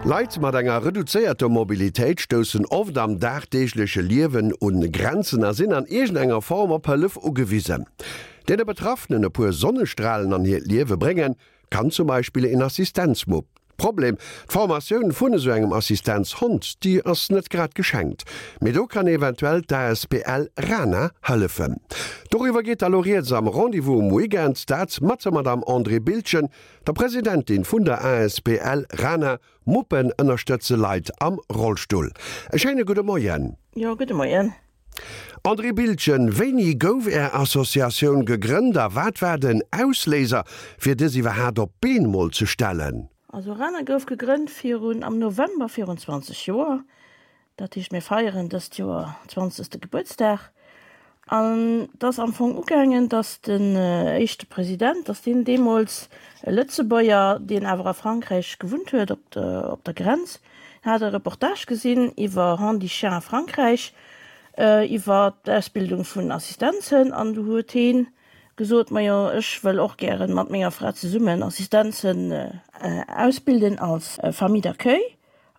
Leit mat enger reduzéierter Mobilitéit stoussen oft am dagdeegleche Liewen un Grenzen a sinn an iergendenger Form op Hëllef ugewisen. Deene Betraffenen e puer Sonnestralen an hiert Liewe bréngen, kann zum Beispill een Assistenzmupp. Problem, D'Formatioun vun esou engem Assistenzhond, déi ass net grad geschenkt. Mee do kann eventuell d'ASBL Rana hëllefen. Doriwwer geet da lo rieds am Rendez-vous um Weekend, dat mat der Madame Andrée Biltgen, der Presidentin vun der ASBL Rana. Muppen ënnerstëtze Leit am Rollstull. E schéine gudde Moien. Jo, gudde Moien. Andrée Biltgen, wéini gouf Är Associatioun gegrënnt a wat war den Ausléiser, fir dës iwwerhaat op d'Been mol ze stellen? Also RANA gouf gegrënnt virun, am November virun 20 Joer. Dat heescht mir feieren dëst Joer zwanzegste Gebuertsdag. An et ass am Fong ugaangen, datt den éischte President, datt deen deemools e Lëtzebuerger, deen awer a Frankräich gewunnt huet, op der, op der Grenz, hat e Reportage gesinn iwwer Handichien a Frankräich, iwwer d'Ausbildung vun Assistenzhënn an du huet heen gesot, majo ech wëll och gären mat menger Fra zesummen Assistenzhënn ausbilden als Famille d'accueil.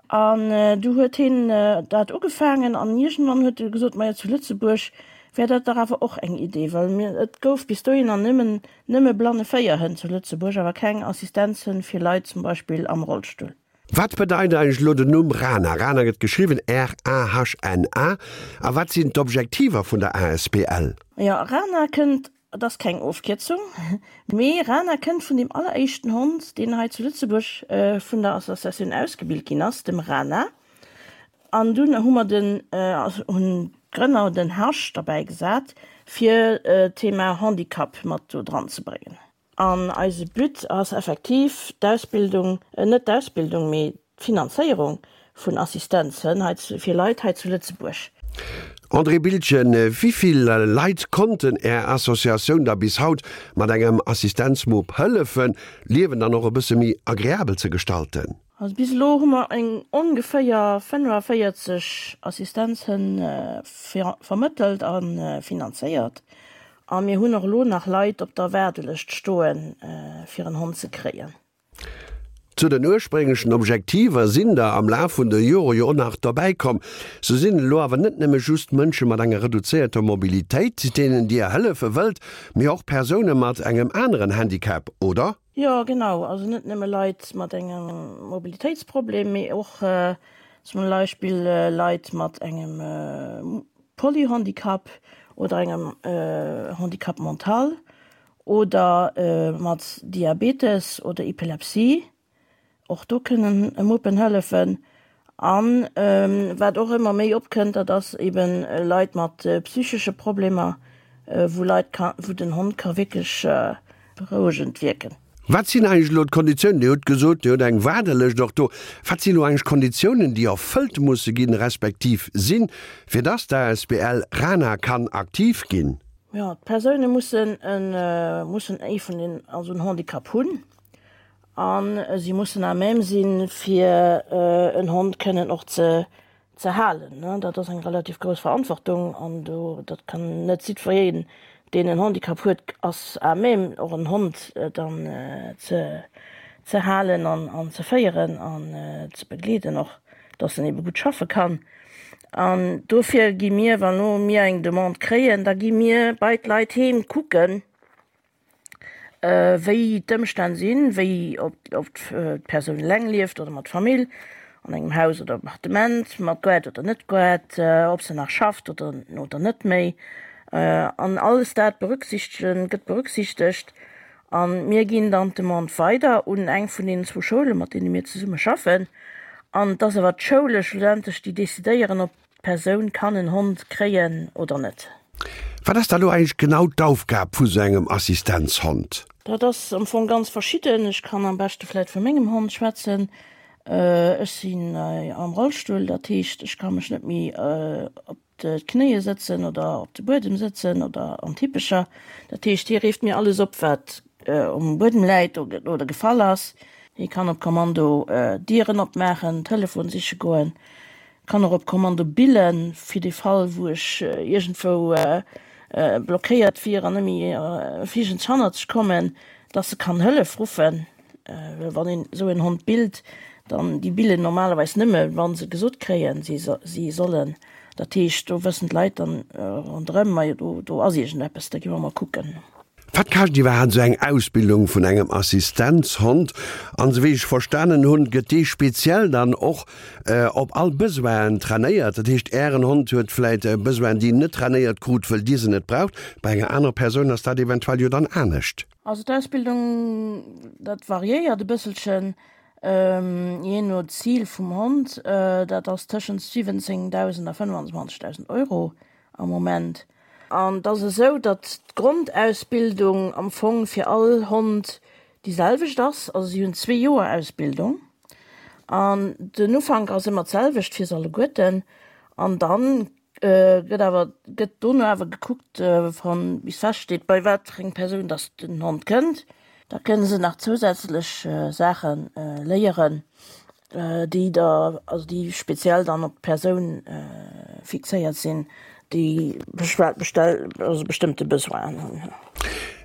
An du huet heen dat ugefaangen an iergendwann huet e gesot, majo zu Lëtzebuerg wär dat dach awer och eng Idee, well mir, et gouf bis dohinner nëmmen, nëmme Blanneféierhënn zu Lëtzebuerg, awer keng Assistenzhënn fir Leit zum Beispill am Rollstull. Wat bedeit eigentlech elo den Numm Rahna? Rahna gëtt geschriwwen R-A-H-N-A. A wat sinn d'Objektiver vun der asbl? Jo, Rahna kënnt Et ass keng Ofkierzung, mee Rana kënnt vun deem alleréischten Hond, deen hei zu Lëtzebuerg vun der Associatioun ausgebilt ginn ass, dem Rana. An dunn hu mer den, hunn d'Grënner den H derbäi gesat, fir d'Thema Handicap mat do dran ze bréngen. An eise But ass effektiv d'Ausbildung, net d'Ausbildung, mee d'Finanzéierung vun Assistenzhënn hei fir Leit hei zu Lëtzebuerg. André Biltgen, Wéi vill Leit konnten Är Associatioun da bis haut mat engem Assistenzmupp hëllefen, d'Liewen dann och e bësse méi agreabel ze gestalten? Also bis elo hu mer eng ongeféier 45 Assistenzhënn vermëttelt a finanzéiert. A mir hunn och elo nach Leit op der Waardelëscht stoen, fir en Hond ze kréien. Zu den ursprénglechen Objektiver sinn der am Laf vun de Jore jo och nach derbäi komm. Sou sinn et elo awer net nëmme just Mënsche mat enger reduzéierter Mobilitéit, deenen Dir hëllefe wëllt, mee och Persoune mat engem aneren Handicap, oder? Jo, genau. Also net nëmme Leit mat engem Mobilitéitsproblem, mee och zum Beispill Leit mat engem Polyhandicap oder engem Handicap mental. Oder mat Diabetes oder Epilepsie, och do kënnen Muppen hëllefen. An wat och ëmmer méi opkënnt, dat ass eben Leit mat psychesche Problemer, wou Leit ka, wou den Hond ka wierklech berouegend wierken. Wat sinn eigentlech elo d'Konditiounen? Dir hutt gesot, Dir hutt eng Waardelëscht och do. Wat sinn elo eigentlech d'Konditiounen, déi erfëllt musse ginn, respektiv sinn, fir dass d'ASBL RANA kann aktiv ginn? Jo, d'Persoune mussen e mussen ee vun den, also en Handicap hunn a si mussen à même sinn, fir en Hond kënnen och ze ze halen. Dat ass eng relativ grouss Verantwortung an do dat kann net jiddwereen, deen en Handicap huet, ass à même och en Hond dann ze ze halen an an ze féieren an ze begleeden och, dass en ebe gutt schaffe kann. An dofir gi mir, wann elo mir eng Demande kréien, da gi mir bei d'Leit heem kucken, wéi d'Ëmstänn sinn, wéi, ob d'Persoun eleng lieft oder mat Famill, an engem Haus oder Appartement, mat Gaart oder net Gaart, ob se nach schafft oder oder net méi. An alles dat berücksichtegen, gëtt berücksichtegt. A mir ginn dann d'Demande weider un eng vun deenen zwou Schoule mat deene mir zesumme schaffen. An et ass awer d'Schoule schlussendlech, déi decidéieren, ob d'Persoun kann en Hond kréien oder net. Wat ass da lo eigentlech genau d'Aufgab vu sou engem Assistenzhond? Dat ass am Fong ganz verschidden. Ech kann am beschte vläit vu mengem Hond schwätzen. Ech sinn am Rollstull, dat heescht, ech ka mech net méi op d'Knéie sëtzen oder op de Buedem sëtzen oder an d'Hippecher. Dat heescht, hie reeft mir alles op, wat um Buedem läit oder gefall ass. Hie kann op Kommando Dieren opmaachen, Telefon siche goen, kann och op Kommando billen, fir de Fall, wou ech iergendwou blockéiert wier an net méi fliegend hannerzeg kommen, dass e kann Hëllef ruffen. Well wann een esou en Hond billt, Dann, déi billen normalerweis nëmme wa se gesot kréien, si si sollen. Dat heescht, do wëssen d'Leit dann ronderëm, majo do do ass iergendeppes, da gi mer mol kucken. Wat kascht iwwerhaapt esou eng Ausbildung vun engem Assistenzhond? An esou wéi ech verstanen hunn, gëtt dee speziell dann och op all Besoinen trainéiert. Dat heescht, Ären Hond huet vläit Besoinen, déi en net trainéiert krut, wëll Dir se net braucht. Bei enger anerer Persoun ass dat eventuell jo dann anescht. Also d'Ausbildung, dat variéiert e bësselchen, jee no Zil vum Hond. Dat ass tëschent 17.000 a 25.000 Euro am Moment. An et ass esou, datt d'Grondausbildung am Fong fir all Hond déi selwecht ass. Also si hunn zwee Joer Ausbildung an den Ufank ass ëmmer d'selwecht fir se alleguerten. An dann gëtt awer, gëtt dono awer gekuckt, wann bis feststeet, bei wat fir eng Persoun datt den Hond kënnt. Da kënne se nach zousätzlech Saache léieren. déi da, also déi speziell dann op d'Persoun fixéiert sinn, déi bestell, also bestëmmte Besoinen hunn.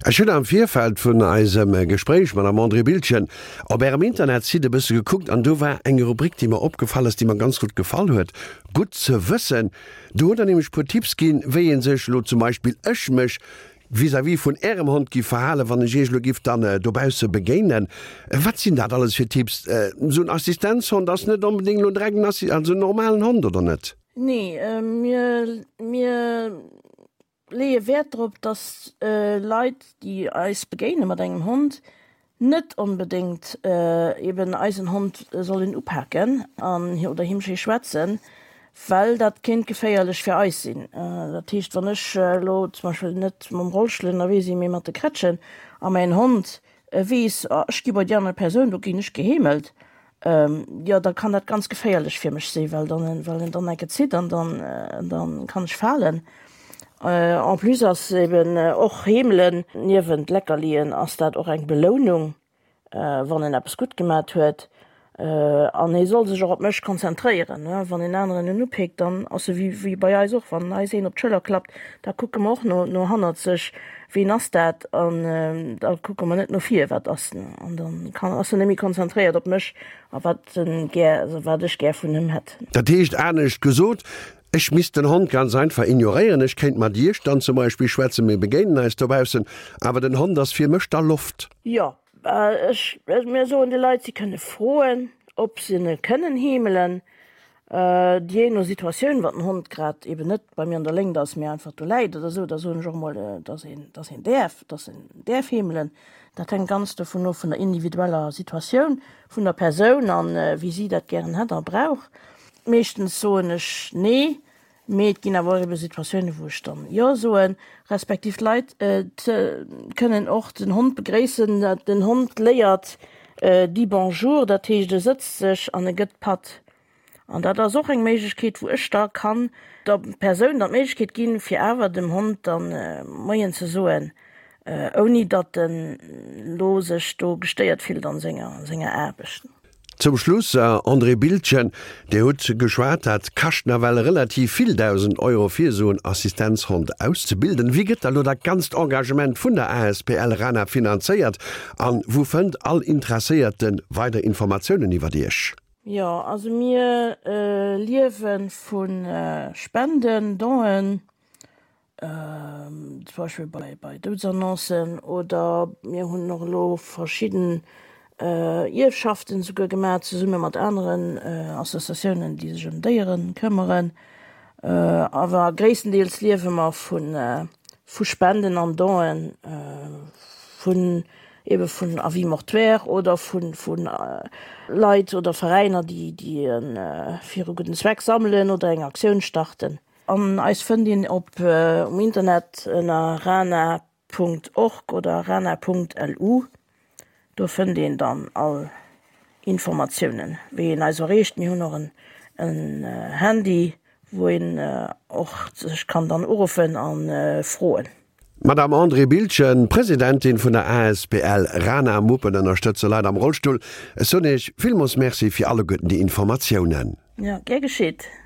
Ech hunn am Virfeld vun eisem Gespréich, Madame Andrée Biltgen, op Ärem Internetsite e bësse gekuckt an do war eng Rubrik, déi mer opgefall ass, déi mer ganz gutt gefall huet, Gutt ze wëssen. Do hutt Der nämlech e puer Tipps ginn, wéi ee sech elo zum Beispill, ech mech, Vis-à-vis vun Ärem Hond giff verhalen, wann ech Iech elo giff dann dobausse begéinen. Wat sinn dat alles fir Tipps? Esou en Assistenzhond ass net onbedéngt elo direkt en Assi-, also en normalen Hond, oder net? Nee, mir, mir leeë Wäert drop, dass Leit, déi eis begéine mat engem Hond, net onbedéngt eben eisen Hond sollen upaken an oder him schéi schwätzen, well dat kéint geféierlech fir eis sinn. Dat heescht, wann ech elo zum Beispill net mam Rollstull ënnerwee sinn, mee mat de Krätschen a mäin Hond weess, oh ech gi bei déi aner Persoun, do ginn ech geheemelt, jo da kann dat ganz geféierlech fir mech sinn, well dann, well en dann enke zitt an dann, dann kann ech falen. En plus ass eben och Heemelen, niewent Leckerlien ass dat och eng Belounung, wann en eppes gutt gemat huet. An hie soll sech och op mech konzentréieren. Wann en aneren en upeekt, dann ass e wéi bei eis och, wann eis een op d'Schëller klappt, da kucke mer och no no hannerzeg, ween ass dat? An da kucke mer net no vir, wat ass en? An dann kann ass en net méi konzentréiert op mech a wat en gär, also wat ech gär vun him hätt. Dat heescht anescht gesot, Ech misst den Hond ganz einfach ignoréieren. Ech kéint mat Iech dann zum Beispill schwätzen, mir begéinen eis dobaussen, awer den Hond ass fir mech da Loft. Jo, ech, mir soen de Leit, si kënne froen, ob se e kënnen heemelen, jee no Situatioun, wann den Hond grad eben net bei mir an der Léngt ass, mee einfach do läit oder esou, da soen ech och emol, dass een, dass een däerf, dass en däerf heemelen. Dat hänkt ganz dovun of, vun der individueller Situatioun vun der Persoun an wéi si dat gären hätt a brauch. Meeschtens soen ech nee, mee et ginn awer och ebe Situatiounen, wou ech dann jo soen, respektiv d'Leit kënnen och den Hond begréissen. Den Hond léiert dit bonjour, dat heescht e sëtzt sech an e gëtt d'Patt. An dat ass och eng Méiglechkeet, wou ech da kann der Persoun dann d'Méiglechkeet ginn, fir awer dem Hond dann Moien ze soen, ouni datt en lo sech do gestéiert fillt an senger Aarbecht. Zum Schluss, André Biltgen, Dir hutt geschwat, dat kascht nawell relativ vill, 1.000 Euro fir esou en Assistenzhond auszebilden. Wéi gëtt da lo dat ganzt Engagement vun der asbl RANA finanzéiert an wou fënnt all Interesséierte weider Informatiounen iwwert Iech? Jo, also mir liewe vu Spenden, Donen, zum Beispill bei, bei Doudesannoncen oder mir hunn och elo verschidden Ierfschaften esouguer gemaach, zesumme mat aneren Associatiounen, déi sech ëm Déiere këmmeren. Awer gréisstendeels liewe mer vu, vu Spenden an Donen, vun ebe vun Avis mortuaires oder vu, vu Leit oder Veräiner, déi, déi fir e gudden Zweck sammelen oder eng Aktioun starten. An eis fënnt een op um Internet ënner rana.org oder rana.lu. Do fënnt een dann all Informatiounen, wéi een eis erreecht. Mir hunn och en Handy, wou een och sech kann dann uruffen a froen. D'Madame Andrée Biltgen, Presidentin vun der asbl Rana Muppen ënnerstëtze Leit am Rollstull. Ech soen Iech villmools Merci fir alleguerten déi Informatiounen. Jo, gär geschitt.